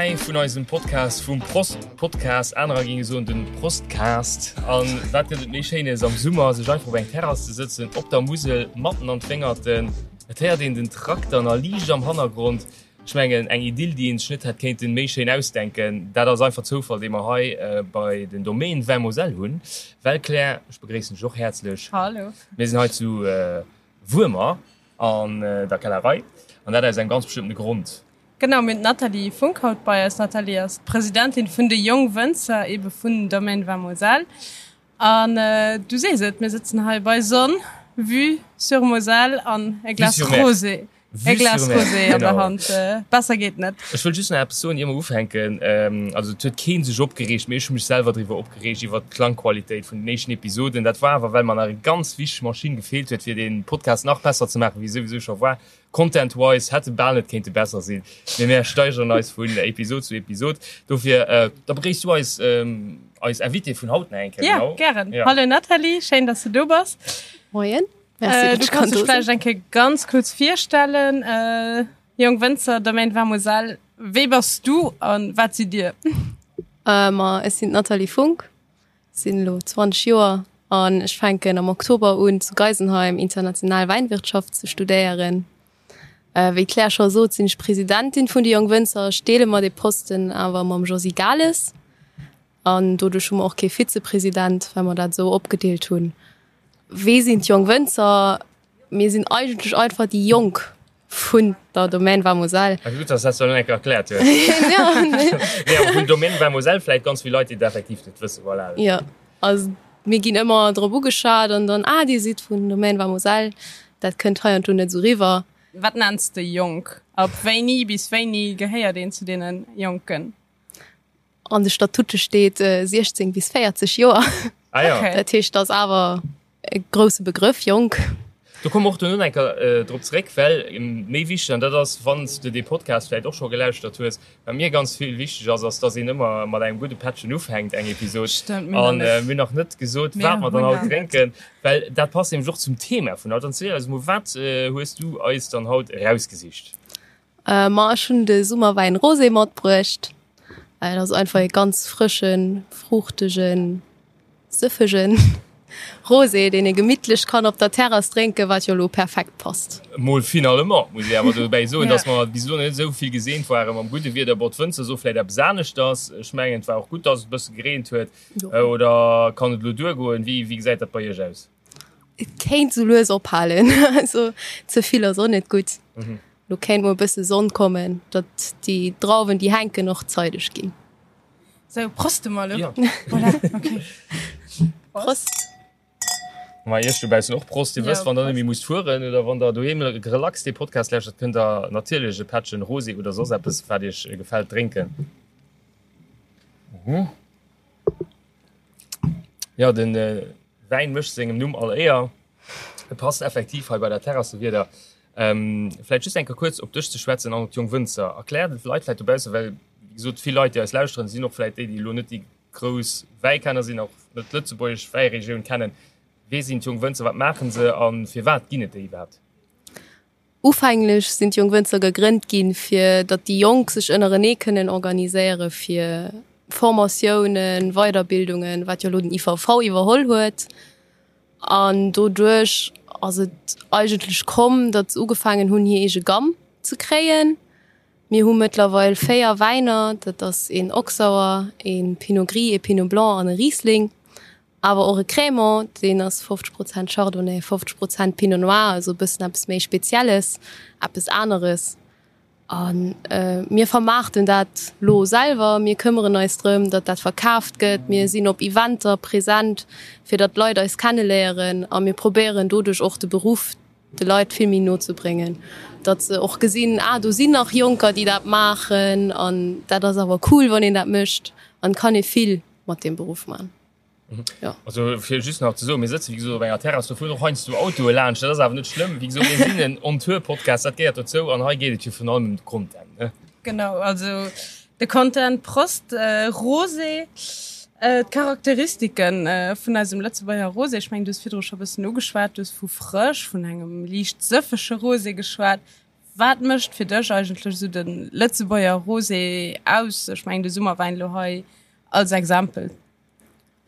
3 vun eisem Podcast vum Prost Podcast. Anerer géinge soen den Prostcast. An wat gëtt et méi Schéines am Summer, sech einfach op eng Terrass ze sëtzen, op der Musel, matten an d'Wéngerten. Et héiert een den Trakter nach liicht am Hannergrond. Ech mengen, eng Idyll, déi een sech net hätt kéinten méi schéin ausdenken. Dat ass einfach Zoufall, dee mer hei bei den Domaine Vin Moselle hunn. Well Claire, ech begréissen dech och häerzlech. Hallo. Mir sinn hei zu Wuermer an der Kellerei an dat aus engem ganz bestëmmtene Grond. Genau, mir hunn d'Nathalie Funck haut bei eis. D'Nathalie ass d'Presidentin vun de Jongwënzer, ebe vun Domaine Vin Moselle. An du sees et, mir sëtzen hei bei Sonn, Vue sur Moselle an e Glas Rosé. E Glas Rosé an der Hand, besser geet net. Ech wëll just nach eppes soen, ier mer ufänken. Also et huet kee sech opgereegt, mee ech hu mech selwer driwwer opgereegt, iwwert d'Klangqualitéit vun den éischten Episoden. Dat war awer, well mer nach eng ganz wichteg Maschinn gefeelt huet, fir dee Podcast nach besser ze maachen, wéi e souwisou scho war. Content-wise hätt e bal net kéinte besser sinn, mee mär steigeren eis vun Episod zu Episod. Dofir, da begréisst du eis, eis Invitée vun haut nach eng Kéier. Jo, gären. Hallo Nathalie, schéin, dass du do bass. Moien. Merci, du kannst dich vielleicht eng Kéier ganz kurz virstellen. Äh, Jong Wënzer, Domaine Vin Moselle, wee bass du an wat sidd Dir? Äh, ma ech sinn d'Nathalie Funck, sinn elo 20 Joer an ech fänken am Oktober un zu Geisenheim international Wäinwirtschaft ze studéieren. Äh, wéi d'Claire scho sot, sinn ech Presidentin vun de Jong Wënzer. Ech deele mer dee Posten awer mam Josy Gales. An doduerch hu mer och kee Vizepresident, well mer dat esou opgedeelt hunn. Wee sinn d'Jonk Wënzer? Mir sinn eigentlech einfach déi Jonk vun der Domaine Vin Moselle. Ah, gutt, dass du dat elo eng Kéier erkläert hues. Ja. Nee, awer vun Domaine Vin Moselle vläicht ganz vill Leit, déi dat effektiv net wëssen. Voilà. Jo, also mir ginn ëmmer drop ugeschat an dann, ah, dir sidd vun Domaine Vin Moselle. Dat kënnt hei an do net esou riwwer. Wat nenns de jonk? Ab wéini bis wéini gehéiert een zu deene Jonken? An de Statute steet 16 bis 40 Joer. Ah ja. Okay. Dat heescht, dat ass awer e grousse Begrëff, jonk. Do komme mer och duerno eng Kéier drop zeréck, well méi wichteg, an dat ass, wann s de dee Podcast vläicht och scho gelauschtert hues, wat mir ganz vill wichteg ass, ass, dass een ëmmer mat engem gudde Pättchen ufänkt eng Episod. Stëmmt, mir hunn An nach net. mir hunn nach net gesot, Mir wat mer dann hunn haut nach net. drénken, well dat passt nämlech och zum Thema vun haut. Dann ziel eis emol, wat hues du eis dann haut erausgesicht? Ma ech hunn de Summerwäin Rosé matbruecht. Dat ass einfach ee ganz frëschen, fruuchtegen, sëffegen Rosé, deen ee gemittlech kann op der Terrass drénken, wat jo elo perfekt passt. Mol finalement muss ee awer dobäi soen, dass mer bis elo net esou vill geseent ware mam gudde Wieder. Bon, d'Wënzer soe vläit eppes aneschters. Ech mengen, et war och gutt, dass et e bësse gereent huet. Oder kann et elo duergoen? Wéi gesäit dat bei Iech aus? Et kéint sou lues ophalen. Also ze vill ass och net gutt. Lo kéint mol e bësse Sonn kommen, datt déi Drauwen déi hänken och zeideg ginn. Sou, proste mer elo. Ja. Voilà, okay. Prost. Ma iech dobaussen och Prost. Dir Ja, wësst, wann der net Prost. méi musst fueren oder wann der doheem relax dee Podcast lauschtert, kënnt der natierlech e Pättchen Rosé oder soss eppes, wat iech gefält, drénken. Jo, den Wäin mécht sengem Numm all Éier. E passt effektiv hei bei der Terrassewieder. Vläicht just eng Kéier kuerz op dech ze schwätzen an op d'Jonk Wënzer. Erklär de Leit vläicht dobaussen, well wéi gesot vill Leit, déi eis lauschteren, sinn och vläicht déi, déi elo net déi grouss Wäikenner sinn, och net d'lëtzebuergesch Wäiregioun kennen. Wee sinn d'Jonk Wënzer, wat maache se a firwat ginn et déi iwwerhaapt? Ufänglech sinn d'Jonk Wënzer gegrënnt ginn, fir datt déi Jonk sech ënnerenee kënnen organiséiere fir Formatiounen, Weiderbildungen, wat jo elo den IVV iwwerholl huet. An doduerch ass et eigentlech komm, datt se ugefaangen hunn, hir eege Gamm ze kréien. Mir hu mëttlerweil 4 Wäiner, dat ass een Oxauer, ee Pinot Gris, ee Pinot Blanc an e Riesling. Awer och e Crémant, deen ass 50 Prozent Chardonnay, 50 Prozent Pinot Noir, also e bëssen eppes méi Spezielles, eppes aneres. A mir vermaarten dat lo selwer, mir këmmeren eis drëm, datt dat verkaaft gëtt, mir sinn op Eventer present, fir datt d'Leit eis kenneléieren a mir probéieren doduerch och de Beruff de Leit vill méi no ze bréngen, datt se och gesinn, ah do sinn nach Jonker, déi dat maachen an dat ass awer cool, wann een dat mécht an et kann ee vill mat deem Beruff man. Ja. Also fir just nach ze soen, mir sëtzen wéi gesot op enger Terrass, do fueren och heiansdo Autoe laanscht, dat ass awer net schlëmm. Wéi gesot, mir sinn en On-Tour-Podcast, dat gehéiert dozou an hei geet et jo virun allem ëm de Content, ne? Genau, also de Content, Prost, Rosé, d'Charakteristiken vun eisem Lëtzebuerger Rosé, ech mengen du hues virdru scho e bëssen ugeschwat, du hues vu frësch, vun engem liicht sëffege Rosé geschwat. Wat mécht fir dech eigentlech esou de Lëtzebuerger Rosé aus? Ech mengen de Summerwäin elo hei als Exempel.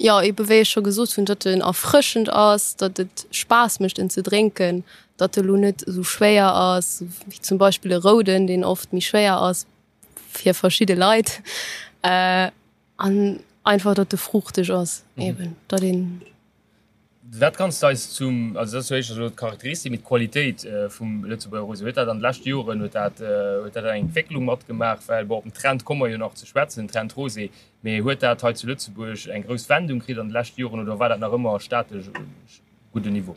Jo, ebe wéi ech scho gesot hunn, datt en erfrëschend ass, datt et Spaass mécht en ze drénken, datt e lo net esou schwéier ass wéi zum Beispill e Rouden, deen oft méi schwéier ass fir verschidde Leit. An einfach, datt e fruuchteg ass eben, datt een. Wat kanns de eis zum, also dat ass jo éischter elo d'Charakteristik, mee d'Qualitéit vum Lëtzebuerger Rosé, huet dat an de leschte Joren, huet dat, huet dat eng Entwécklung matgemaach? Well bon, op den Trend komme mer jo nach ze schwätzen, den Trend Rosé, mee huet dat hei zu Lëtzebuerg eng grouss Wendung kritt an de leschte Joren oder war dat nach ëmmer statesch gudden Niveau?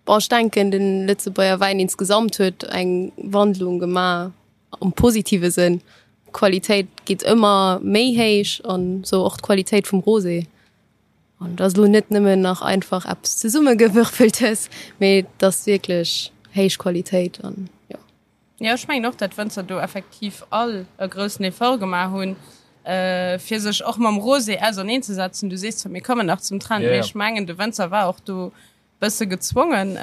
Bon, ech denken, de Lëtzebuerger Wäin insgesamt huet eng Wandlung gemaach am positive Sënn. D'Qualitéit geet ëmmer méi héich an esou och d'Qualitéit vum Rosé. An et ass elo net nëmmen nach einfach eppes zesummegewürfeltes, mee et ass wierklech héich Qualitéit an jo. Jo, ech mengen och, dat d'Wënzer do effektiv all e groussen Effort gemaach hunn, fir sech och mam Rosé auserneenzesetzen. Du sees zwar, mir kommen nach zum Trend, mee ech mengen, de Wënzer war och do bësse gezwongen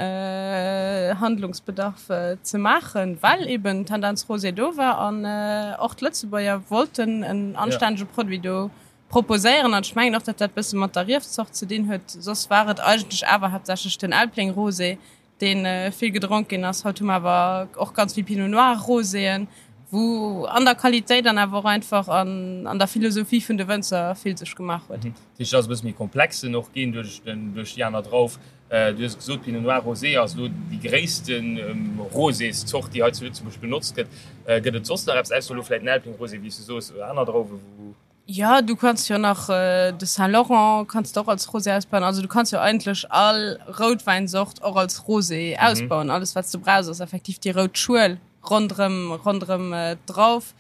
Handlungsbedarf ze maachen, well eben Tendenz Rosé do war an och d'Lëtzebuerger wollten en anstännege Produit do proposéieren. An ech mengen och, datt dat bësse mat der Riefzort ze dinn huet. Soss war et eigentlech awer haaptsächlech den Elbling Rosé, dee vill gedronk ginn ass. Haut hu mer awer och ganz vill Pinot Noir Roséen, wou an der Qualitéit an awer och einfach an der Philosophie vun de Wënzer vill sech gemaach huet. Dat heescht, et ass e bësse méi komplex en och ginn duerch den, duerch déi aner Drauf. Du hues et gesot, Pinot Noir Rosé ass elo déi gréisste Rosészort, déi hei zu Lëtzebuerg benotzt gëtt. Gëtt et soss nach eppes, ausser elo vläicht den Elbling Rosé, wéi s du soos, oder aner Drauwen, wou. Jo, du kanns jo nach de Saint Laurent kanns de och als Rosé ausbauen. Also du kanns jo eigentlech all Routwäinzort och als Rosé ausbauen. Alles wat s du brauchs ass effektiv déi rout Schuel ronderëm, ronderëm d'Drauf.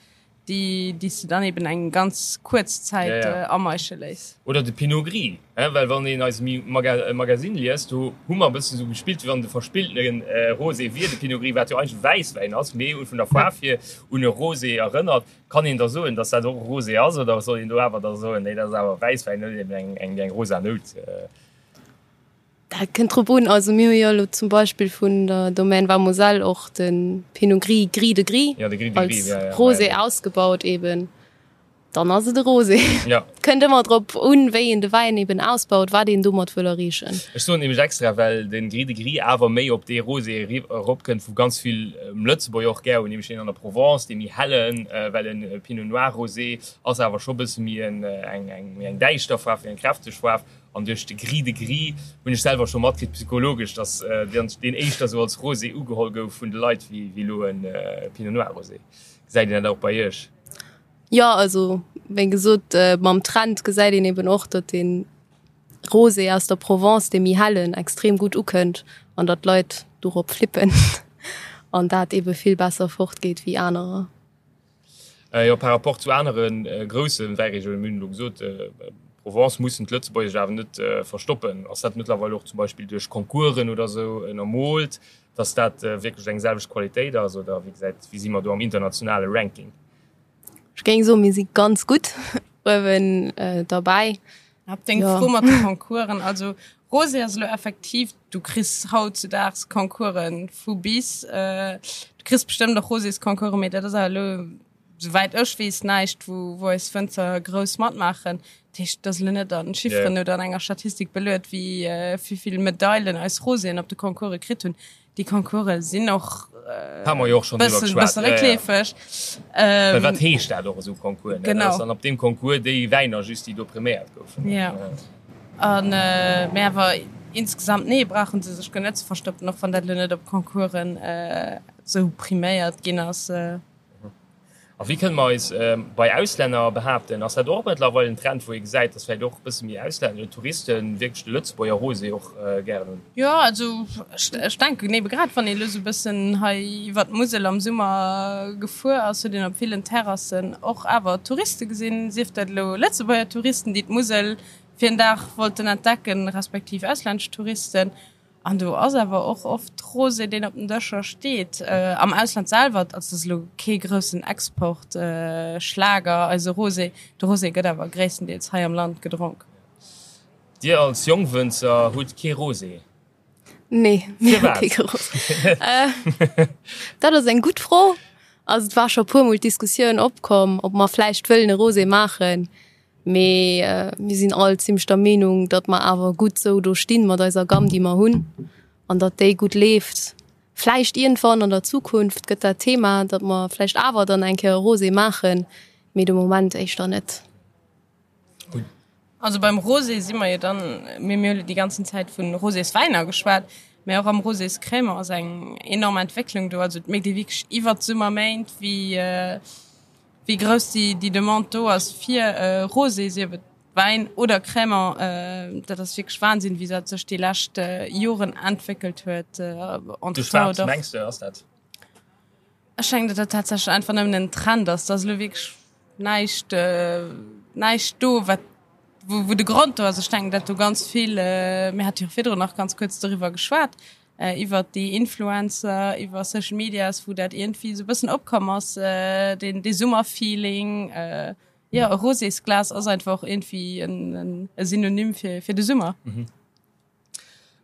déi déi s de dann eben eng ganz kuerz Zäit ameische léiss. Oder de Pinot Gris, hein, well wann een eise Magasinn liest, do hu mer e bëssen esou gespillt, wéi wann de verspilltene Rosé wier, de Pinot Gris, wat jo eigentlech Wäisswäin ass, mee vun der Faarf hier un e Rosé erënnert. Kann een da soen, datt dat och e Rosé ass, oder soll een do awer da soen, nee, dat ass awer Wäisswäin, huet eben eng rosa Nout? Dat kënnt drop un. Also mir hu jo elo zum Beispill vun der Domaine Vamoselle och de Pinot Gris, Gris de Gris, ja, de Gris de Gris, als ja, ja, Rosé ja. ausgebaut eben. Dann ass et e Rosé. Ja. Kënnt ëmmer drop un, wéi een de Wäin eben ausbaut, wat een domat wëll erreechen. Ech soen nämlech extra, well de Gris de Gris awer méi op dee Rosé eropkënnt, wou ganz vill Lëtzebuerger och gär hunn, nämlech deen an der Provence, dee méi hellen, well e Pinot Noir Rosé ass awer scho bësse méi eng, eng, méi eng däischter Faarf, méi eng kräfteg Faarf. An duerch de Gris de Gris hunn ech selwer scho matkritt, psychologesch, dass deen éischter sou als Rosé ugeholl gouf vun de Leit wéi elo e Pinot Noir Rosé. Gesäit een dat och bei Iech? Jo, also wéi gesot, mam Trend gesäit een eben och, datt de Rosé aus der Provence, dee méi hellen, extrem gutt ukënnt an datt d'Leit dorop flippen an dat ebe vill besser fortgeet wéi anerer. Jo, par rapport zu anere grousse Wäiregiounen, mir hunn elo gesot, Provence, mussen d'Lëtzebuerger sech awer net verstoppen. Ass dat mëttlerweil och zum Beispill duerch Concoursen oder esou ënnermoolt, datt dat wierklech eng selwecht Qualitéit ass oder wéi gesäit, wéi si mer do am internationale Ranking? Ech géing soen, mir si ganz gutt uewen derbäi. Op deng Fro mat de Concoursen, also Rosé ass elo effektiv, du kriss hautzedaags Concoursen vu bis. Du kriss bestëmmt och Rosésconcoursen, mee dat ass awer elo, souwäit ech weess, näischt, wou wou eis Wënzer grouss matmaachen. Dat heescht, et ass elo net an Chifferen oder an enger Statistik beluet, wéi vill Medailen eis Roséen op de Concourse kritt hunn. Déi Concourse sinn och bëssen réckleefeg. Well wat heescht dat och esou Concours? Ne? Genau. An op deem Concours déi Wäiner just, déi do priméiert goufen. Ja. An mee awer insgesamt, nee, brauche se sech guer net ze verstoppen, och wann dat elo net op Concoursen esou priméiert ginn ass. A wéi kënne mer eis bei Auslänner behaapten? Ass dat och mëttlerweil en Trend, wou ee gesäit, datt vläicht och e bësse méi Auslänner oder Touriste wierklech de Lëtzebuerger Rosé och gären hunn? Jo, also ech denken ebe grad, wann ee elo esou e bëssen hei iwwert d'Musel am Summer gefuer ass, huet een op villen Terrassen och awer Touriste gesinn, sief dat elo Lëtzebuerger Touristen, déi d'Musel fir en Dag wollten entdecken, respektiv auslännesch Touristen. An do ass awer och oft Rosé, deen op den Dëscher steet. Am Ausland selwer ass dat elo kee groussen Exportschlager, eise Rosé. De Rosé gëtt awer gréisstendeels hei am Land gedronk. Dir als Jongwënzer hutt kee Rosé? Nee, mir hu kee Rosé. Dat ass eng gutt Fro. Also et war scho puermol d'Diskussioun opkomm, ob mer vläicht wëllen e Rosé maachen. Mee mir sinn all zimmlech der Meenung, datt mer awer gutt sou do stinn mat eiser Gamm, déi mer hunn, an datt déi gutt leeft. Vläicht iergendwann an der Zukunft gëtt dat Thema, datt mer vläicht awer dann eng Kéier e Rosé maachen, mee de Moment éischter net. Also beim Rosé si mer jo dann, mir mir hu déi ganzen Zäit vu Roséswäiner geschwat, mä och am Roséscrémant ass eng enorm Entwécklung do. Also et mierkt ee wierklech iwwert d'Summerméint, wéi wéi grouss déi déi Demande do ass fir Rosé, sief et Wäin oder Crémant. Dat ass wierklech Wahnsinn, wéi dat sech déi lescht Joren entwéckelt huet. Duerch wat mengs de ass dat? Ech mengen, datt dat tatsächlech einfach nëmmen en Trend ass. Et ass elo wierklech näischt, näischt do, wat, wou, wou de Grond do ass. Ech denken, datt do ganz vill, mir hate jo virdrun nach ganz kuerz doriwwer geschwat, iwwert déi Influencer, iwwer Social Medias, wou dat iergendwéi esou e bëssen opkomm ass, deen, dee Summerfeeling. Jo, e Rosésglas ass einfach och iergendwéi en, e Synonym fir, fir de Summer.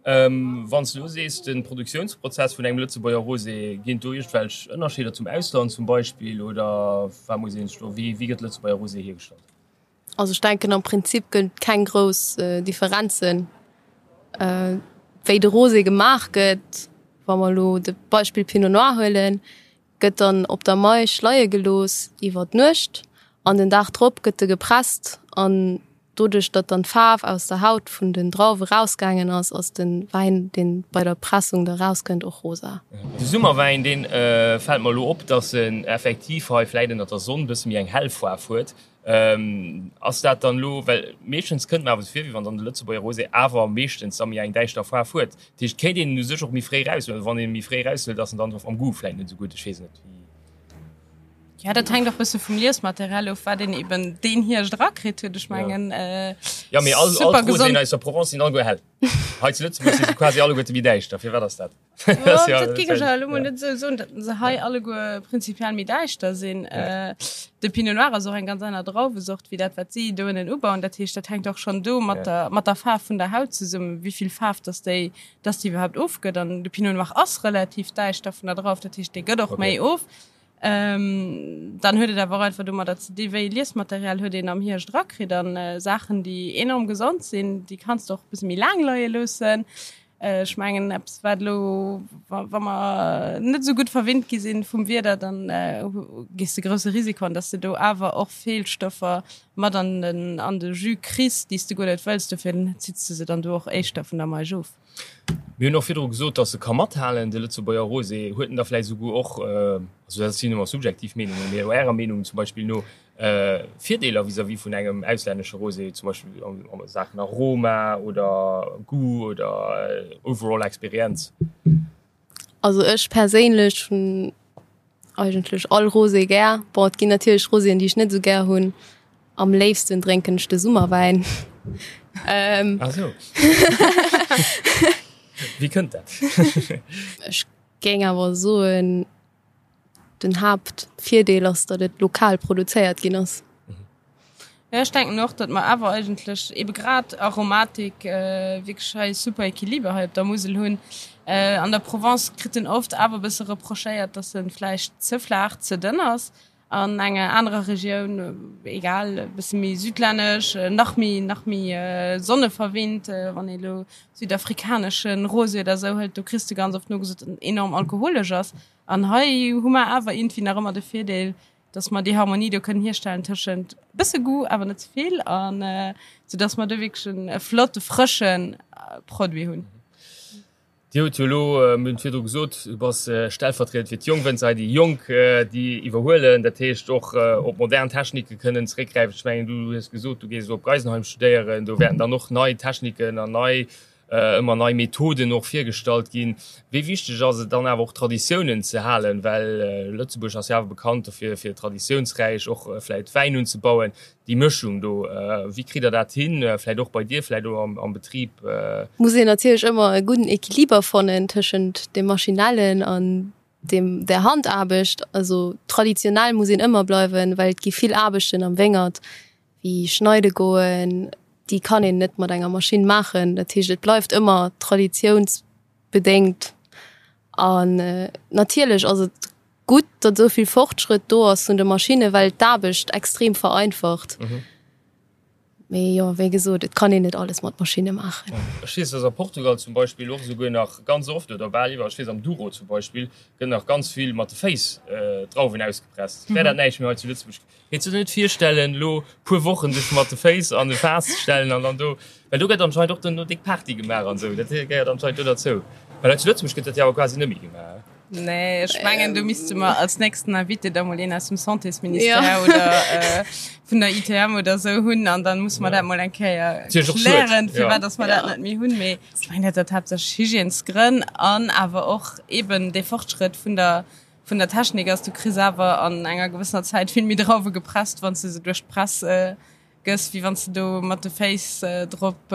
Wann s de elo sees, de Produktiounsprozess vun engem Lëtzebuerger Rosé, ginn et do iergendwelch Ënnerscheeder zum Ausland zum Beispill oder wat muss een sech do, wéi wéi gëtt Lëtzebuerger Rosé hiergestallt? Also ech denken am Prinzip gëtt et keng grouss Differenzen wéi de Rosé gemaach gëtt. Wa mer elo de Beispill Pinot Noir huelen, gëtt dann op der Maisch leie gelooss iwwer d'Nuecht an den Dag drop gëtt e gepresst an doduerch datt dann d'Faarf aus der Haut vun den Drauwe rausgaangen ass, ass de Wäin deen bei der Pressung da rauskënnt och rosa. De Summerwäin deen fält mer elo op, datt en effektiv hei vläit ënnert der Sonn bësse méi eng hell Faarf huet. Ass dat dann elo, well meeschtens kënnt mer awer esou vir, wéi wann dann de Lëtzebuerger Rosé awer meeschtens da méi eng däischter Faarf huet. Dat heescht, kéint een en u sech och méi fréi eraushuelen? Wann een e méi fréi eraushëlt, ass en dann am Goût vläicht net esou gutt? Ech weess net, wéi. Jo, dat hänkt och bësse vum Liesmaterial of, wat een eben deen Hierscht erakritt huet. Ech mengen, Jo, mee all, all d'Roséen aus der Provence sinn alleguer hell. Hei zu Lëtzebuerg si se quasi alleguerte méi däischter. Firwat ass dat? Dat géing ech awer elo mol net esou soen, datt se hei alleguer prinzipiell méi däischter sinn. De Pinot Noir ass och eng ganz aner Drauwesort wéi dat, wat si do ënnen ubauen. Dat heescht, dat hänkt och schonn do mat der, mat der Faarf vun der Haut zesummen, wéi vill Faarf datt déi, datt déi iwwerhaapt ofgëtt. An de Pinot Noir ass relativ däischter vun der Drauf, dat heescht, dee gëtt och méi of. Dann huet et awer och einfach domadder ze di wéi Liesmaterial huet een am Hierscht erakritt an Saachen, déi enorm gesond sinn, déi kanns de och e bësse méi laang leie loossen. Ech mengen eppes wat elo, wa mer net esou gutt verwinnt gi sinn vum Wieder, dann gees de grousse Risiko an, datt s de do awer och Feelstoffer mat an den an de Jus kriss, déi s de guer net wëlls. Dofir zitts de se dann do och éischter vun der Maisch of. Mir hunn och virdru gesot, datt e ka mathalen, de Lëtzebuerger Rosé. Huet en da vläicht esouguer och, also dat sinn ëmmer subjektiv Meenungen, mee Ärer Meenung zum Beispill no, Virdeeler vis-à-vis vun engem auslännesche Rosé, zum Beispill a Saachen Aroma oder Goût oder overall Experienz? Also ech perséinlech hunn eigentlech all Rosé gär. Bon, et ginn natierlech Roséen, déi ech net esou gär hunn. Am léifsten drénken ech de Summerwäin. Ah sou. Wéi kënnt dat? Ech géing awer soen, Den Haaptvirdeel ass, datt et lokal produzéiert ginn ass. Jo, ech denken och, datt mer awer eigentlech ebe grad Aromatik wierklech hei super Equiliber hei op der Musel hunn. An der Provence kritt en oft awer e bësse reprochéiert, datt e vläicht ze flaach, ze dënn ass. An enger anerer Regioun, egal, e bësse méi südlännesch, nach méi, nach méi sonneverwinnt, wann ee elo südafrikanesche Rosé oder esou hëlt, do kriss de ganz oft nogesot, datt en enorm alkoholesch ass. An hei hu mer awer iergendwéi nach ëmmer de Virdeel, dass mer déi Harmonie do kënnen hierstellen tëschent e bësse Goût, awer net ze vill, an soudass mer do wierklech en e flotte, frësche Produit hunn. Dir hutt jo elo, mir hunn et virdru gesot, du bass stellvertriedend fir d'Jongwënzer hei, déi Jonk, déi iwwerhuelen, dat heescht och op modern Technike kënnen zeréckgräifen. Ech mengen, du hues gesot, du gees elo op Geisenheim studéieren, do wäerten dann och nei Techniken an nei ëmmer nei Methoden och virgestallt ginn. Wéi wichteg ass et dann awer och Traditiounen ze halen, well Lëtzebuerg ass jo awer bekannt dofir fir traditiounsräich och vläit Wäin unzebauen. Déi Mëschung do, wéi kritt der dat hin, vläit och bei dir, vläit och am Betrib? Muss een natierlech ëmmer e gudden Equiliber fannen tëschent dem Maschinellen an dem der Handaarbecht. Also traditionell muss een ëmmer bleiwen, well et gi vill Aarbechten am Wéngert, wéi schneide goen, déi kann een net mat enger Maschinn maachen. Dat heescht, et bleift ëmmer traditiounsbedéngt. Bedéngt. An natierlech ass et gutt, datt esou vill Fortschrëtt do ass vun de Maschinnen, well et d'Aarbecht extrem vereinfacht. Mee jo, wéi gesot, et kann een net alles mat Maschinne maachen. Ech weess, datt a Portugal zum Beispill och esouguer nach ganz oft, oder bal iwwerall, ech weess am Douro zum Beispill, gëtt nach ganz vill mat de Féiss d'Drauwen ausgepresst. Wär dat näischt méi hei zu Lëtzebuerg? Kéints du der net virstellen, elo puer Wochen dech mat de Féiss an e Faass ze stellen an dann do, well do gëtt anscheinend och dann do déck Party gemaach an esou, dat gehéiert anscheinend do derzou. Well hei zu Lëtzebuerg gëtt dat jo awer quasi net méi gemaach. Nee, ech mengen do misste mer als nächsten Invité da mol een aus dem Santésministère oder vun der ITM oder esou hunn an dann musse mer dat mol eng Kéier klären, firwat dass mer dat net méi hunn. Mee ech mengen dat huet haaptsächlech Hygiènesgrënn an awer och eeben dee Fortschrëtt vun der vun der Technik ass, du kriss awer an enger gewëssener Zäit vill méi Drauwe gepresst, wann s de se duerch d'Press gëss, wéi wann s de do mat de Féiss drop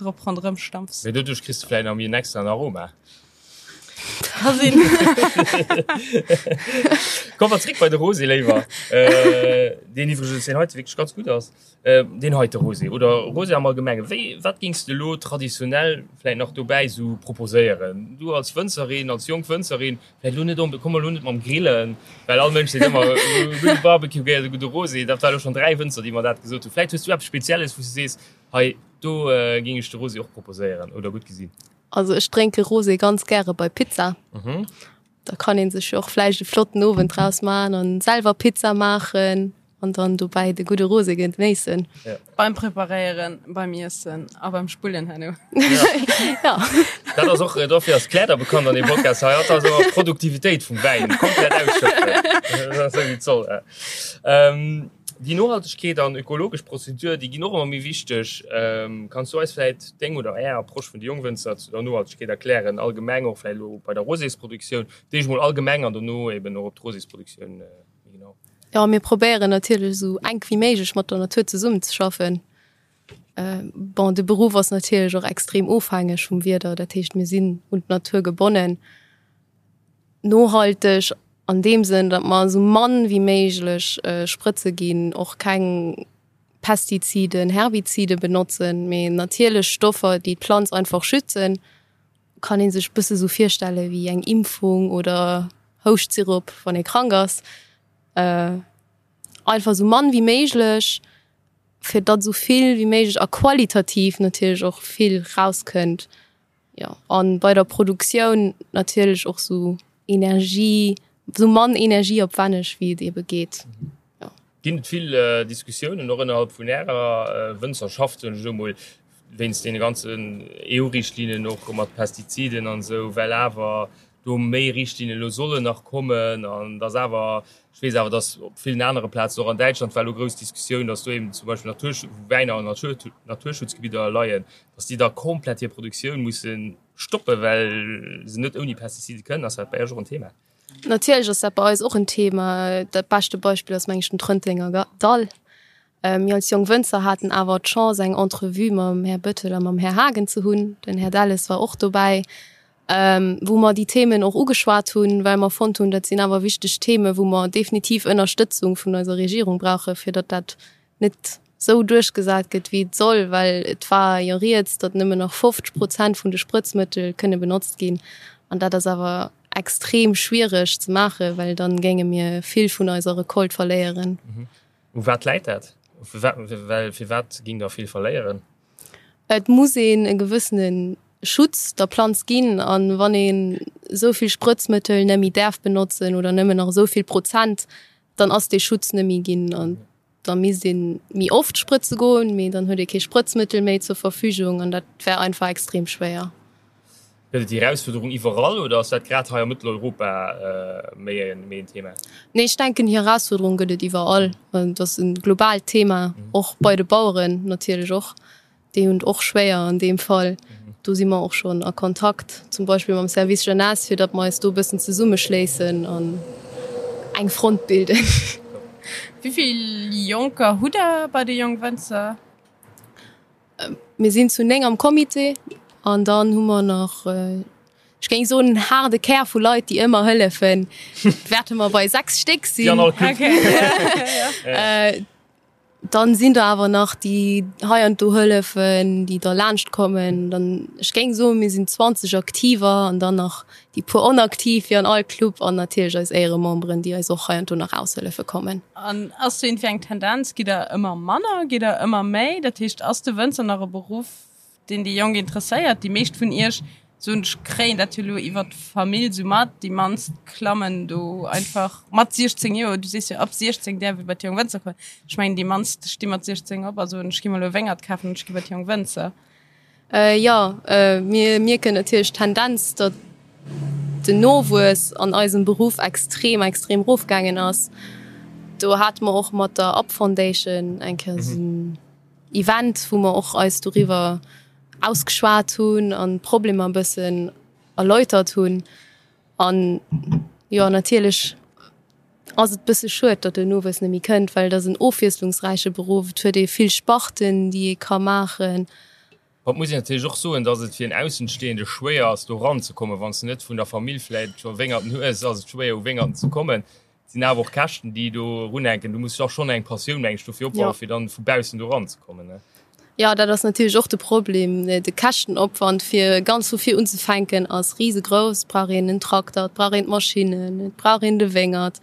drop ronderëm stampfs. Mee doduerch kriss de vläicht nach méi en extraen Aroma. Ka sinn. Komme mer zréck bei de Rosé léiwer, deen iwwregens deen heite wierklech ganz gutt ass. Deen heite Rosé oder Rosé am Allgemengen, wéi, wat géings de elo traditionell vläicht nach dobäi esou proposéieren? Du als Wënzerin, als jonk Wënzerin, vläicht elo net onbe-, komm elo net mam Grillen, well all Mënsch seet ëmmer, e gudde Barbecue gehéiert e gudde Rosé. Dat war elo schonn 3 Wënzer, déi mer dat gesot hunn. Vläicht hues du eppes Spezielles, wou s du sees, hei do géing ech de Rosé och proposéieren oder gutt gesinn. Also ech drénke Rosé ganz gäre bei Pizza. Da kann ee sech jo och vläicht e flotten Owend draus maachen an selwer Pizza maachen an dann dobäi de gudde Rosé genéissen. Ja. Beim Preparéieren, beim Iessen a beim Spullen herno. Ja. Dat ass och, dofir ass d'Claire da bekannt an deem Podcast hei. Hatt ass ëmmer d'Produktivitéit vum Wäin komplett ausschöpfen. Dat ass esou wéi et soll. Ähm, déi Nohaltegkeet an ökologesch Prozedur, déi ginn och ëmmer méi wichteg. Ähm, kanns du eis vläit deng oder är Approche vun de Jongwënzer zu der Nohaltegkeet erklären, allgemeng och vläit elo bei der Rosésproduktioun, d'éischt mol allgemeng an dono eben och op d'Rosésproduktioun méi genau? Jo, mir probéieren natierlech esou enk wéi méiglech mat der Natur zesummenzeschaffen. Bon, de Beruff ass natierlech och extrem ofhängeg vum Wieder, dat heescht mir sinn un d'Natur gebonnen. Nohalteg an deem Sënn, datt mer esou mann wéi méiglech Sprëtze ginn, och keng Pestiziden, Herbizide benotzen, mee natierlech Stoffer, déi d'Planz einfach schützen. Kann ee sech bësse sou virstelle wéi eng Impfung oder Houschtsirop, wann ee krank ass. Einfach esou mann wéi méiglech, fir datt esou vill wéi méiglech a qualitativ natierlech och vill rauskënnt. Jo, an bei der Produktioun natierlech och sou Energie, sou mann energieopwänneg wéi et ebe geet. Jo. Ginn et vill Diskussiounen och ënnerhalb vun Ärer Wënzerschaft, soen ech elo mol, wéinst deene ganzen EU-Richtlinnen och mat Pestiziden an esou, well awer do méi Richtlinnen elo sollen nach kommen an dass awer, ech weess awer, dass op villen anere Plazen, och an Däitschland war elo grouss Diskussioun, dass do eben zum Beispill Natur, wou Wäiner an Naturschutzgebidder leien, dass déi da komplett hir Produktioun musse stoppen, well se net ouni Pestizide kënnen. Ass dat bei Iech och en Thema? Natierlech ass dat bei eis och en Thema. Dat beschte Beispill ass, meng ech, den Trëntenger Dall. Mir als jonk Wënzer haten awer d'Chance, eng Entrevue mam Här Bettel a mam Här Haagen ze hunn. Den Här Delles war och dobäi, wou mer déi Themen och ugeschwat hunn, well mer fonnt hunn, dat sinn awer wichteg Themen, wou mer definitiv Ënnerstëtzung vun eiser Regierung brauchen, fir datt dat net esou duerchgesat gëtt, wéi et soll, well et war jo rieds, datt nëmmen nach 50 Prozent vun de Sprëtzmëttel kënne benotzt ginn. An dat ass awer extrem schwiereg ze maachen, well dann géinge mir vill vun eiser Recolte verléieren. U wat läit dat? Well firwat géing der vill verléieren? Et muss een e gewëssene Schutz der Planz ginn an wann een esou vill Sprëtzmëttel net méi däerf benotzen oder nëmmen nach esou vill Prozent, dann ass dee Schutz net méi ginn an da misst ee méi oft sprëtze goen, mee dann huet ee kee Sprëtzmëttel méi zur Verfügung an dat wär einfach extrem schwéier. Gëtt et déi Erausfuerderung iwwerall oder ass dat grad hei a Mëtteleuropa méi en Thema? Nee, ech denken déi Erausfuerderung gëtt et iwwerall. Et ass e globaalt Thema, och bei de Baueren natierlech och. Déi hunn et och schwéier an deem Fall. Do si mer och schonn a Kontakt, zum Beispill mam Service Jeunesse, fir datt mer eis do e bëssen zesummeschléissen an eng Front bilden. Wéi vill Jonker hutt Der bei de Jongwënzer? Mir sinn zu 9 am Comité an dann hu mer nach, ech géing soen, en haarde Kär vu Leit, déi ëmmer hëllefen. Wäerte mer bei 6 Stéck sinn. Dann sinn der awer nach, déi hei an do hëllefen, déi da laanscht kommen. Dann, ech géing soen, mir sinn 20 Aktiver an dann nach déi puer Onaktiv wéi an all Club an natierlech eis Éierememberen, déi eis och hei an do nach aushëllefe kommen. An ass do iergendwéi eng Tendenz? Gitt der ëmmer manner? Gitt der ëmmer méi? Dat heescht, ass de Wënzer nach e Beruff, deen déi Jonk interesséiert. Déi meescht vun iech, soen ech, kréien dat jo elo iwwer d'Famill sou mat. Déi mannst klammen do einfach mat 16 Joer, du sees jo ab 16 däerf ee bei d'Jong Wënzer kommen. Ech mengen déi mannst sti mat 16 op a soen, ech gi mer elo e Wéngert kafen an ech gi bei d'Jong Wënzer. Jo, mir mierken natierlech d'Tendenz, datt den Nowuess an eisem Beruff extrem, extrem erofgaangen ass. Do hate mer och mat der Up Foundation eng Kéier esou en Event, wou mer och eis doriwwer ausgeschwat hunn an d'Problemer e bëssen erläutert hunn. An jo, natierlech ass et bësse schued, datt den Nowuess net méi kënnt, well et ass en ofwiesslungsräiche Beruff, et huet ee vill Sparten, déi ee ka maachen. Et muss een natierlech och soen, datt et fir en Aussenstehende schwéier ass, do eranzekommen. Wann s de net vun der Famill vläicht scho Wéngerten hues, ass et schwéier, u Wéngerten ze kommen. Et sinn awer och Käschten, déi do erunhänken. Du muss och schonn eng Passioun, meng ech, dofir opbauen, fir dann vu baussen do eranzekommen, ne? Jo, dat ass natierlech och de Problem. De Käschtenopwand, fir ganz vu vir unzefänken, ass risegrouss. Et brauch een en Trakter, et brauch een d'Maschinnen, et brauch een de Wéngert,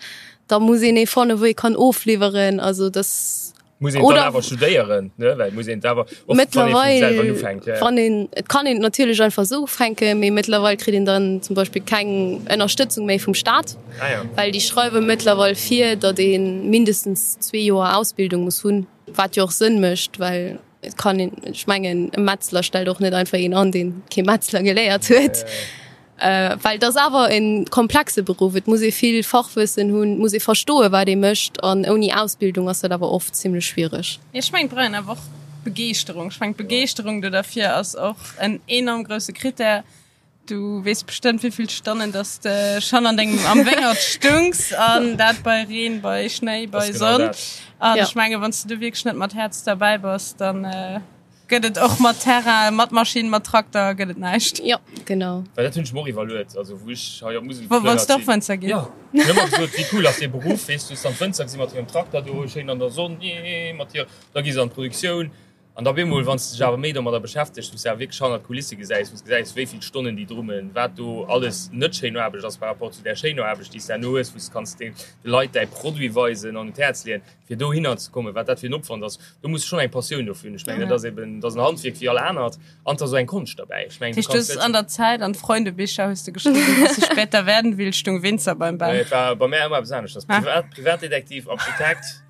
da muss een ee fannen, wou ee kann ofliwweren. Also dass Muss een dann awer studéieren, ne? Well muss een awer och, wann ee vum selwer ufänkt, ja. Wann een, et kann een natierlech einfach esou ufänken, mee mëttlerweil kritt een dann zum Beispill keng Ënnerstëtzung méi vum Staat, ah, ja. well déi schreiwe mëttlerweil vir, datt ee mindestens zwee Joer Ausbildung muss hunn, wat jo och Sënn mécht, well et kann een, ech mengen e Metzler stellt och net einfach een an, deen kee Metzler geléiert huet. Ja, ja. Well et ass awer e komplexe Beruff, et muss ee vill Fachwëssen hunn, et muss ee verstoen, wat ee mécht an ouni Ausbildung ass dat awer oft zimlech schwiereg. Ech mengen, et brauch een awer och Begeeschterung. Ech mengen, d'Begeeschterung do derfir ass och en enorm grousse Critère. Du weess bestëmmt, wéi vill Stonnen dass de schonn an dengem, am Wéngert stungs an dat bei Reen, bei Schnéi, bei Sonn. An ech mengen, wann s de do wierklech net mat Häerz derbäi bass, dann. Gëtt et och mat Terrain, mat Maschinn, mat Trakter, gëtt et näischt. Jo, genau. Well dat hunn ech mer och iwwerluet, also wou ech hei op d'Musel Wo, wollts de och Wënzer ginn? Jo, ech hunn ëmmer gesot, wéi cool ass dee Beruff, weess du, hues dann d'Wënzer gesi mat hirem Trakter do schéin an der Sonn, jee, mat hir, da gi se an d'Produktioun an da op eemol, wann s de dech awer méi domadder beschäftegs, wou s de awer wierklech hannert d'Kulisse gesäis, wou s gesäis, wéi vill Stonnen déi drummen, wat do alles net schéin Aarbecht ass par rapport zu där schéiner Aarbecht, déi s de herno hues, wou s kanns de Leit däi Produit weisen an un d'Häerz leeën. fir dohinner ze kommen, wat dat fir en Opwand ass, do muss schonn eng Passioun dofir hunn. Ech mengen, dat ass eben, dat ass en Handwierk wéi all anert an et ass och eng Konscht derbäi. Ech mengen, du kanns net. An der Zäit an d'Freundebicher hues de geschriwwen, was ich später werden will, stung Winzer beim Ben. Nee, et war bei mär ëmmer eppes aneschters. Privat, Privatdetektiv, Architekt,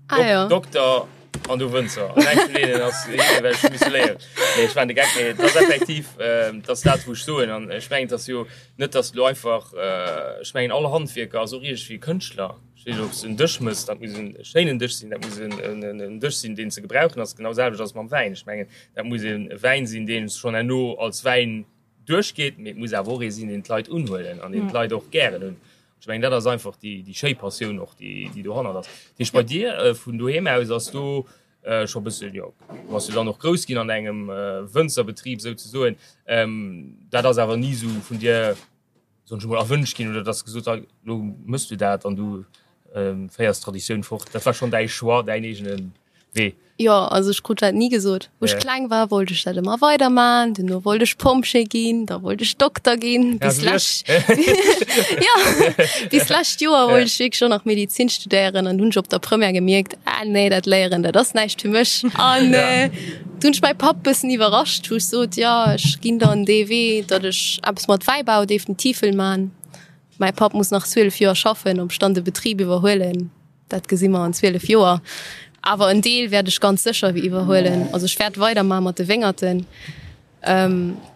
ah, ja. Dokter an du Wënzer. An eng vun deenen ass well ech misse léieren. Nee, ech waren de Geck, mee et ass effektiv, ähm, dat ass dat, wou ech soen. An ech mengen, et ass jo net, dass du einfach, äh, ech mengen, all Handwierker ass och iergendwéi Kënschtler. Ech weess net, ob s de en Dësch mëss, dat muss en schéinen Dësch sinn, dat muss en Dësch sinn, deen ze gebrauchen ass. Genau selwecht ass et mam Wäin. Ech mengen, dat muss e Wäin sinn, dee schonn herno als Wäin duerchgeet, mee et muss awer och ee sinn, deen d'Leit unhuelen an deen d'Leit och gären hunn. Ech mengen, dat ass einfach déi schéi Passioun och, déi dohannert ass. Dat heescht, bei dir vun doheem aus ass do scho e bëssen, jo, du bass jo dann och grouss ginn an engem Wënzerbetrib souzesoen, dat ass awer ni esou vun dir, soen ech emol, erwënscht ginn oder dass gesot hat, lo mëss du dat an du féiers d'Traditioun fort. Dat war schonn däi Choix, däin eegene Wee. Jo, also ech krut dat ni gesot. Wou ech kleng war, wollt ech dat ëmmer weiderman. Duerno wollt ech Pompjee ginn, da wollt ech Dokter ginn. Bis lech jo, bis lescht Joer wollt ech wierklech och nach Medizin studéieren an hunn ech op der Première gemierkt, ah nee, dat Léieren, dat ass näischt fir mech. An Du hunn ech mäi Papp bëssen iwwerrascht, wou ech sot, jo ech ginn dann dee Wee, datt ech eppes mat Wäibau definitiv wëll man. Mäi Papp muss nach 12 Joer schaffen, ob ech dann de Betrib iwwerhuelen, dat gesi mer an 12 Joer. Awer en Deel wäert ech ganz sécher iwwerhuelen. Also ech wäert weidermache mat de Wéngerten.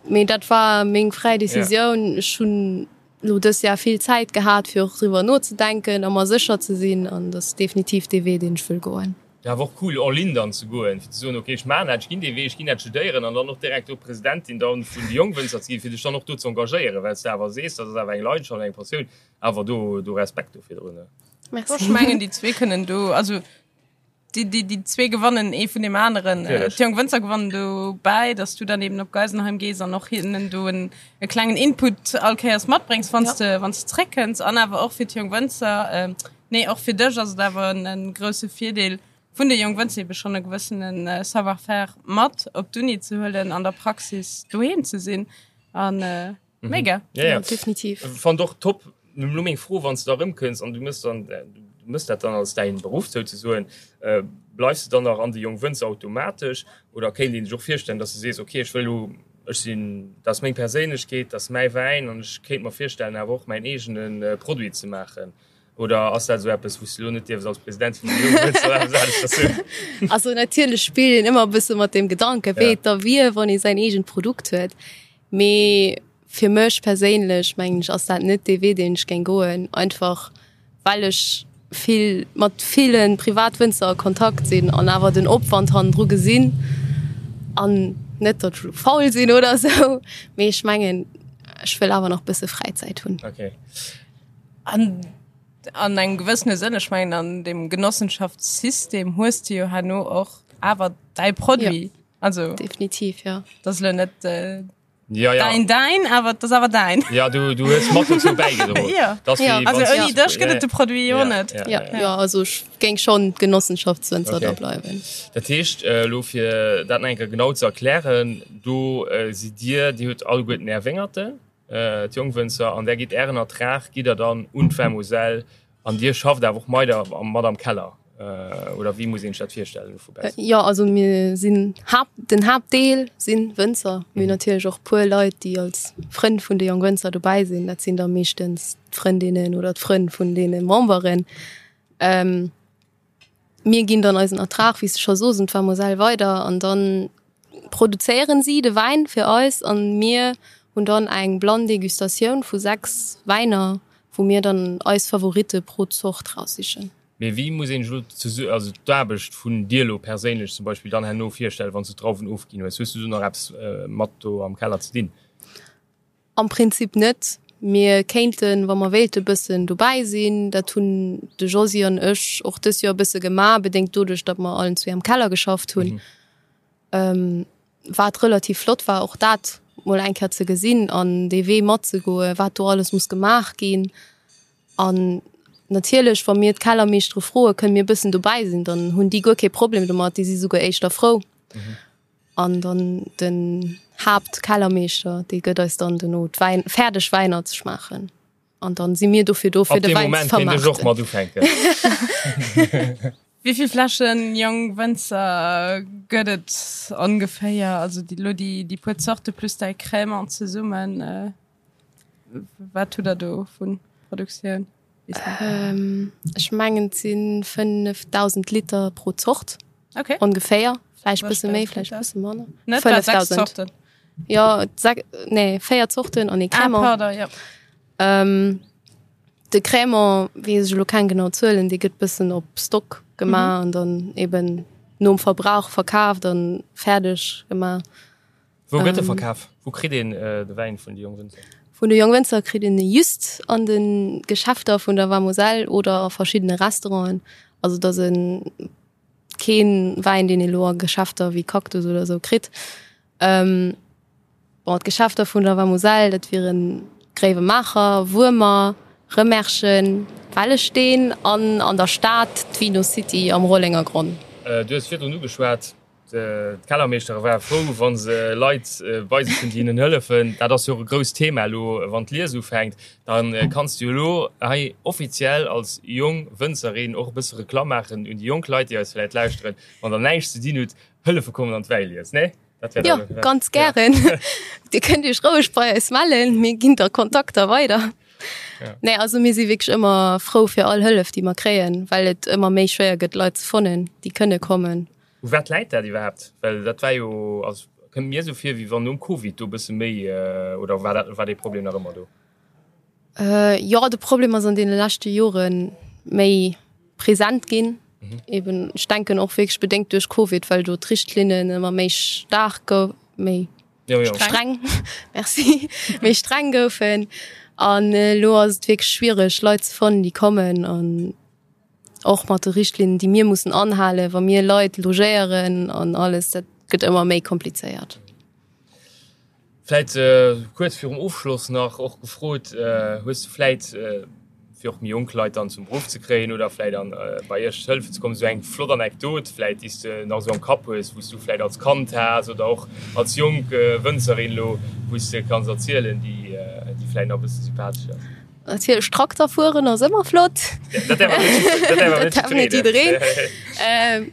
Mee dat war meng fräi Decisioun. Ech hunn elo dës Jahr vill Zäit gehat, fir och driwwer nozedenken a mer sécher ze sinn. An dat ass definitiv dee Wee, deen ech wëll goen. Ja, awer och cool all in dann ze goen, fir ze soen, ok, ech maachen dat, ech ginn dee Wee, ech ginn dat studéieren an dann och direkt do Presidentin dann vun de Jongwënzer ze ginn, fir dech dann och do ze engagéieren, well s de awer sees, dat ass awer eng Leidenschaft, eng Passioun, awer do do Respekt do virdrun. Merci. Ech mengen, déi zwee kënnen do, also déi, déi, déi zwee gewannen ee vun deem aneren. Natierlech. D'Jong Wënzer gewannen dobäi, dass du dann eben op Geisenheim gees an och hinnen do en e klengen Input all Kéiers matbréngs, wann s de, wann s de zréckkënns an awer och fir d'Jong Wënzer, Nee, och fir dech ass et awer en grousse Virdeel. Vun de Jongwënzer ebe schonn e gewëssene Savoir-faire mat op d'Uni ze huelen, an der Praxis doheem ze sinn an mega. Ja, ja. Definitiv. Fand och top. Lo meng Fro, wann s de da erëmkënns an du mëss dann, du mëss dat dann als däin Beruff souzesoen, bleifs de dann nach an de Jongwënzer automatesch oder kéint een sech och virstellen, dass de sees, okay, ech wëll elo, ech sinn, dat ass meng Perséinlechkeet, dat ass mäi Wäin an ech kéint mer virstellen awer och mäin eegene Produit ze maachen? Oder ass dat esou eppes, wou s de elo net dierfs als President vun de Jongwënzer eppes aneschters soen? Also natierlech spillt een ëmmer e bësse mat deem Gedanken, wéi et da wier, wann ee säin eegent Produkt huet. Mee fir mech perséinlech, mengen ech, ass dat net dee Wee, deen ech géing goen, einfach well ech vill mat ville Privatwënzer a Kontakt sinn an awer den Opwand hannendru gesinn. An net, datt ech elo faul sinn oder esou, mee ech mengen, ech wëll awer nach e bësse Fräizäit hunn. Okay. An an engem gewëssene Sënn, ech mengen an dem Genossenschaftssystem hues de jo herno och awer däi Produit. Ja. Also definitiv ja. Dat ass elo net äh, ja, ja. däin däin, awer dat ass awer däin. Ja, du, du hues mat dozou bäigedroen. Ja. Das Ja. wéi Also wanns- ouni dech gëtt et de Produit jo Ja, net. ja, Ja, ja. ja, also ech géing schonn Genossenschaftswënzer Okay. da bleiwen. Dat heescht, äh, elo fir dat nach eng Kéier genau ze erklären, do äh, sidd Dir, Dir hutt alleguerten Är Wéngerten, D'Jongwënzer, an där gitt Ären Ertrag gitt Der dann un d'Vermoselle an Dir schafft awer och meider mat am Keller, oder wéi muss een sech dat virstellen elo vu baussen? Jo, also mir sinn Haapt, den Haaptdeel si Wënzer. Mir hunn natierlech och puer Leit, déi als Frënn vun de Jongwënzer dobäi sinn. Dat sinn da meeschtens d'Frëndinnen oder d'Frënn vun deene Memberen. Mir ginn dann eisen Ertrag, wéi s de scho sos, un d'Vermoselle weider an dann produzéieren si de Wäin fir eis an mir hunn dann eng blann Degustatioun vu 6 Wäiner, wou mir dann eis Favoritte pro Zort raussichen. Mee wéi muss een sech elo zesu also d'Aarbecht vun dir elo perséinlech zum Beispill dann herno virstellen, wann s du d'Drauwen ofginn hues? Hues du do nach eppes mat do am Keller ze dinn? Am Prinzip net. Mir kéinten, wa mer wéilte bëssen dobäi sinn. Dat hunn de Josy an ech och dës Joer e bësse gemaach, bedéngt doduerch, datt mer allen zwee am Keller geschafft hunn. Wat relativ flott war, och dat mol eng Kéier ze gesinn an dee Wee matzegoen, wat do alles muss gemaach ginn. An natierlech, wa mir d'Kellermeeschtere froen, kënne mir e bëssen dobäi sinn, dann hunn déi guer kee Problem domat, déi si souguer éischter frou. An dann den Haaptkellermeeschter, dee gëtt eis dann dono d'Wäin, fäerdeg Wäiner ze schmaachen. An dann si mir dofir do, fir Ab de deem Wäin ze Moment kéint ech och vermaarten. mat ufänken. Wéi vill Fläschen Jongwënzer gëtt et ongeféier? Also déi, lo déi, déi puer Zorte plus däi Crémant zesummen, wat hutt der do vu Produktioun? Ech mengen et si 5.000 Liter pro Zort. Okay. Ongeféier. Vläicht bësse méi, vläicht bësse manner. Net wat 6 Zorten? Jo, nee, 4 Zorten an ee Crémant. Ah, pardon, jo. Ähm, de Crémant weess ech elo keng genau Zuelen, dee gëtt bëssen op Stock gemaach an dann eben nom Verbrauch verkaaft an fäerdeg gemaach. Wou gëtt e verkaf? Wou kritt een de Wäin vun de Jongwënzer? Vun de Jongwënzer kritt een e just an de Geschäfter vun der Vamoselle oder a verschiddene Restauranten. Also et ass e kee Wäin, deen ee lo a Geschäfter wéi Cactus oder esou kritt. Bon, d'Geschäfter vun der Vamoselle, dat wiere Gréiwemaacher, Wuermer, Remerschen, Wellesteen an an der Stad d'Vino City am Rollengergronn. Du hues virdrun ugeschwat, D'Kellermeeschtere ware frou, wa se Leit bei sech hunn, déi hinnen hëllefen. Dat ass jo och e grousst Thema elo, wann d'Lies ufänkt. Da kanns du jo elo hei offiziell als jong Wënzerin och e bësse Reklamm maachen un déi jonk Leit, déi eis vläicht lauschteren. Wann der näischt ze dinn hutt, hëllefe kommen an d'Wäilies, nee? Dat wär Jo, ganz gären. Dir kënnt Iech roueg bei eis mellen, mir ginn da Kontakter weider. Nee, also mir si wierklech ëmmer frou fir all Hëllef, déi mer kréien, well et ëmmer méi schwéier gëtt, Leit ze fannen, déi kënne kommen. U wat läit dat iwwerhaapt? Well dat war jo, also kënnt mir esou vir, wéi wann nom Covid do e bësse méi, oder war dat, war dee Problem nach ëmmer do? Jo, de Problem ass an deene leschte Jore méi present ginn. Eben, ech denken och wierklech bedéngt duerch Covid, well do d'Richtlinnen ëmmer méi staark gou-, méi streng, merci, méi streng goufen. An elo ass et wierklech schwiereg, Leit ze fannen, déi kommen an Och mat de Richtlinnen, déi mir mussen anhalen, wa mir Leit logéieren an alles, dat gëtt ëmmer méi komplizéiert. Vläit kuerz virum Ofschloss nach och gefrot, Hues du vläit fir. fir och méi jonk Leit dann zum Beruff ze kréien oder vläit an bei iech hëllefen ze kommen, esou eng flott Anekdot vläit, déi s de nach esou am Kapp hues, wou s du vläit als Kand has oder och als jonk Wënzerin elo, wou s de kanns erzielen, déi déi vläit nach e bësse sympathesch ass? Natierlech Trakter fueren ass ëmmer flott. Dat däerf awer net jiddereen.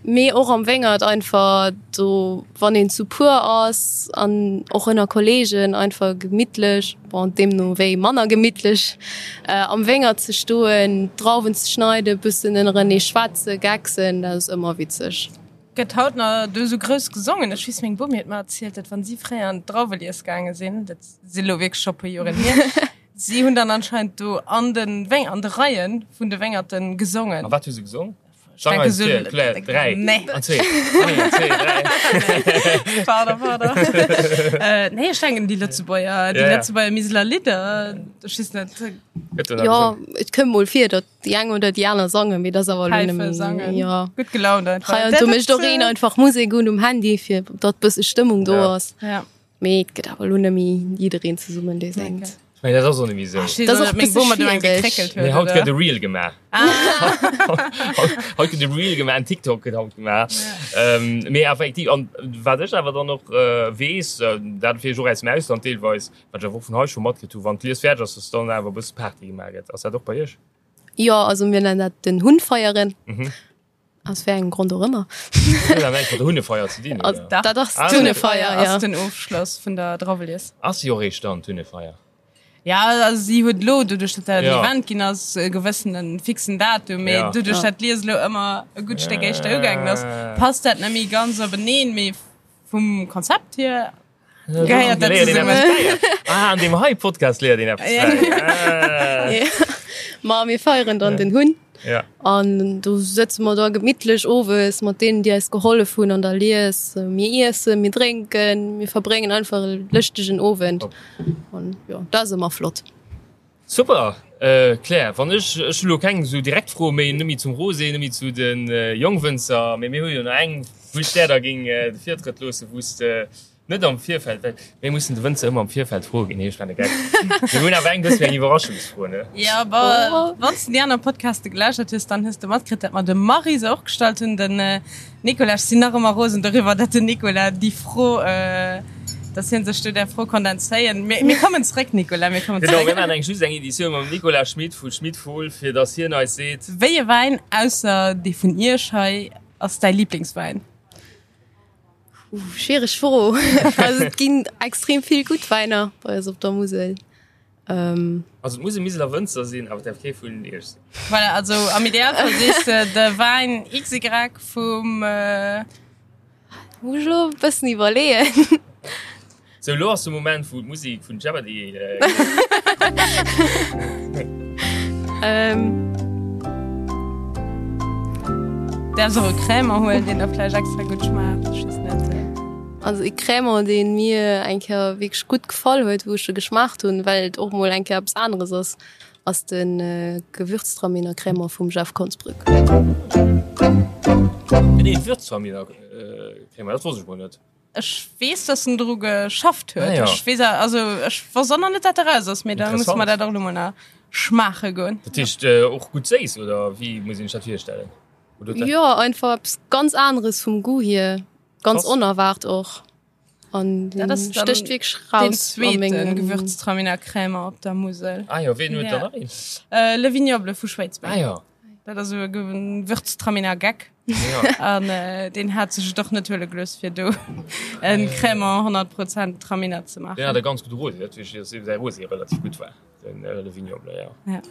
Mee och am Wéngert einfach do wann een zu puer ass an och ënner Kollegen einfach gemittlech, bon deemno wéi manner gemittlech, am Wéngert ze stoen, d'Drauwen ze schneiden, bëssen ënnerenee schwätzen, gecksen, dat ass ëmmer witzeg. Gëtt haut nach do esou grouss gesongen? Ech weess, meng Bomi huet mer erzielt, datt wann si fréier an d'Drauwelies gaange sinn, dat si lo wierklech scho puer Joren hier, si hunn dann anscheinend do an de Wéng, an de Reie vun de Wéngerten gesongen. A wat hu se gesong? Ech denke sou, Claire, 3, nee. an 2, 1, 2, 3. Pardon, pardon. Nee, ech denken déi Lëtzebuerger, déi Lëtzebuerger Miseler Lidder, ech weess net. Jo, et kënnt mol vir, datt déi eng oder déi aner sangen, mee dat ass awer elo Päife nëmme, sangen, jo. Gutt gelaunt einfach. Hei an do mécht och een einfach Musek un um Handy, fir datt bësse Stëmmung do ass. Ja. Mee et gëtt awer elo net méi jiddereen zesummen, dee séngt. Ech mengen, dat ass och net méi esou. Dat ass och e bësse schwiereg. Nee, haut gëtt e Reel gemaach. Haut gëtt e Reel gemaach, en TikTok gëtt haut gemaach. Mee effektiv, an wat ech awer dann och weess, dat weess ech och aus dem Ausland deelweis, wat ech awer och vun hei scho matkritt hu, wann d'Lies fäerdeg ass, dass dann awer e bësse Party gemaach gëtt. Ass dat och bei iech? Jo, also mir nennen dat den Hunn feieren. Aus wéi engem Grond och ëmmer. Huet dat näischt mat der Hunnefeier ze dinn, oder? Dat ass d'Hunnefeier, ja. Ass den Ofschloss vun der Drawelies. Ass si och eréischt dann, d'Hunnefeier? Ja, also si huet elo, doduerch datt dat en Event ginn ass, e gewëssene fixen Datum, mee doduerch datt d'Lies elo ëmmer e gutt Stéck éischter ugaangen ass, passt dat net méi ganz openeen, mee vum Konzept hier Gehéiert dat zesummen. Ah, an deem hei Podcast léiert een eppes bäi. Ma mir feieren dann den Hunn. Ja. An do sëtze mer da gemittlech owes mat deenen, déi eis gehollef hunn an der Lies. Mir iessen, mir drénken, mir verbréngen einfach e lëschtegen Owend. An jo, dat ass ëmmer flott. Super, Claire. Wann ech, ech hu lo keng esou direkt Froe méi, net méi zum Rosé, net méi zu de Jongwënzer, mee mir hu jo nach eng, wou ech där da géing de Virtrëtt loossen, wou s de net am Virfeld, well mir mussen de Wënzer ëmmer am Virfeld froe ginn, nee, ech maachen e Geck. Mir hunn awer eng bëssen eng Iwwerraschungsfro, ne? Jo, bon, wann s de déi aner Podcaste gelauschtert hues, dann hues de matkritt, dat mer dem Marie se och gestallt hunn, den Nicolas, ech sinn nach ëmmer rosen doriwwer, datt den Nicolas déi Fro, datt hien sech do där Fro konnt entzéien. Mir, mir kommen zréck, Nicolas, mir kommen Genau, zréck. mir maachen eng just eng Editioun mam Nicolas Schmit vu Schmit Fohl, fir datt hien eis seet. Wéi e Wäin, ausser dee vun Iech hei, ass däi Liblingswäin? Ooh, schwiereg Fro. Also et ginn extrem vill gutt Wäiner bei eis op der Musel. Also et muss e Miseler Wënzer sinn, awer et däerf kee vun iech sinn. Voilà, also am Idealfall sees de de Wäin XY vum. Muss ech elo e bëssen iwwerleeën. Sou, elo ass de Moment wou d'Musek vun Jeopardy. Däerfs och e Crémant huelen, deen der vläicht extra gutt schmaacht, ech weess net. Also e Crémant, dee mir eng Kéier wierklech gutt gefall huet, wou ech e geschmaacht hunn, well et och mol eng Kéier eppes aneres ass, ass de Gewürztraminer Crémant vum Jeff Konsbrück. Gëtt ee Gewürztraminer Crémant? Dat wosst ech mol net. Ech weess, dass en dru geschafft huet. Ah, ja. Ech weess, also ech wosst och nach net, dat eraus ass, mee da muss Interessant. mer dat och elo mol nach schmaache goen. Dat heescht och gutt séiss, oder wéi muss een sech dat virstellen? Oder huet dat. Jo, einfach eppes ganz aneres vum Goût hier. Ganz Krass. onerwaart och. An Dat ass dann stécht wierklech Den raus a zweeten mengem. Gewürztraminer Crémant op der Musel. Ah jo, ween huet Ja. dann nach een? Äh, Le Vignoble vu Schwéidsbeng. Ah jo. Dat ass esou e Gewürztraminer Geck. Ja. An äh, deen hat sech et och net huele gelooss, fir do en Crémant 100 Prozent Traminer ze Deen hat maachen. e ganz gudde Rosé, dat weess ech, dass säi Rosé relativ gutt war. Den Le Vignoble, ja. Ja.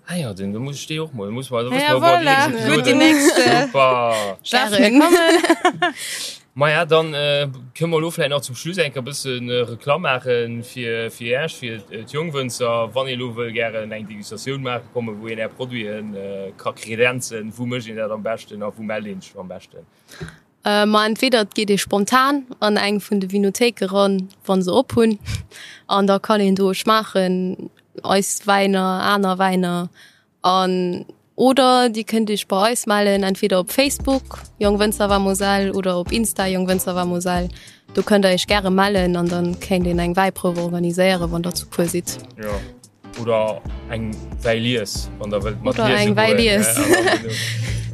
Ah ja, den, da muss ich dee och mol, muss mal, da Ja, voilà. Gutt, déi nächst, äh, Super. Darf mir kommen. Maja, dann äh, kënne mer elo vläicht nach zum Schluss eng Kéier e bëssen äh, Reklamm maache fir, fir Iech, fir d'Jongwënzer. Wann ee elo wëll gären eng Degustatioun maache kommen, wou een Är Produiten äh, ka kredenzen, wou mécht een dat am beschten a wou mellt een sech am beschten? Ma entweder et geet ee spontan an eng vun de Vinothéike ran, wa se op hunn, an da kann een do schmaachen, eis Wäiner, aner Wäiner. An oder Dir kënnt Iech bei eis mellen, entweder op Facebook, Jong Wënzer Wa Moselle, oder op Insta, Jong Wënzer Wa Moselle. Do kënnt der Iech gäre mellen an dann kéint een eng Wäiprouf organiséieren, wann der zu puer sidd. Jo. Oder eng Wäilies, wann der wëllt mat Oder eng Wäilies.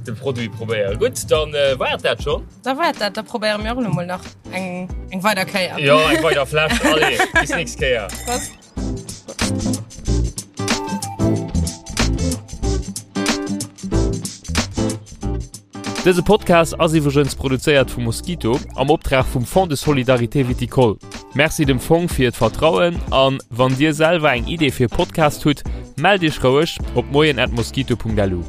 De Produit probéieren. Gutt, dann war et dat schonn. Da war et dat. Da probéiere mir och elo mol nach eng, eng weider Kéier. Jo, eng weider Fläsch. Allez, bis nächst Kéier. Prost. Dëse Podcast ass iwwregens produzéiert vu Mosquito am Optrag vum Fonds de Solidarité Viticole. Merci dem Fong fir d'Vertrauen an wann dir selwer eng Idee fir e Podcast hutt, mellt iech roueg op moien@mosquito.lu.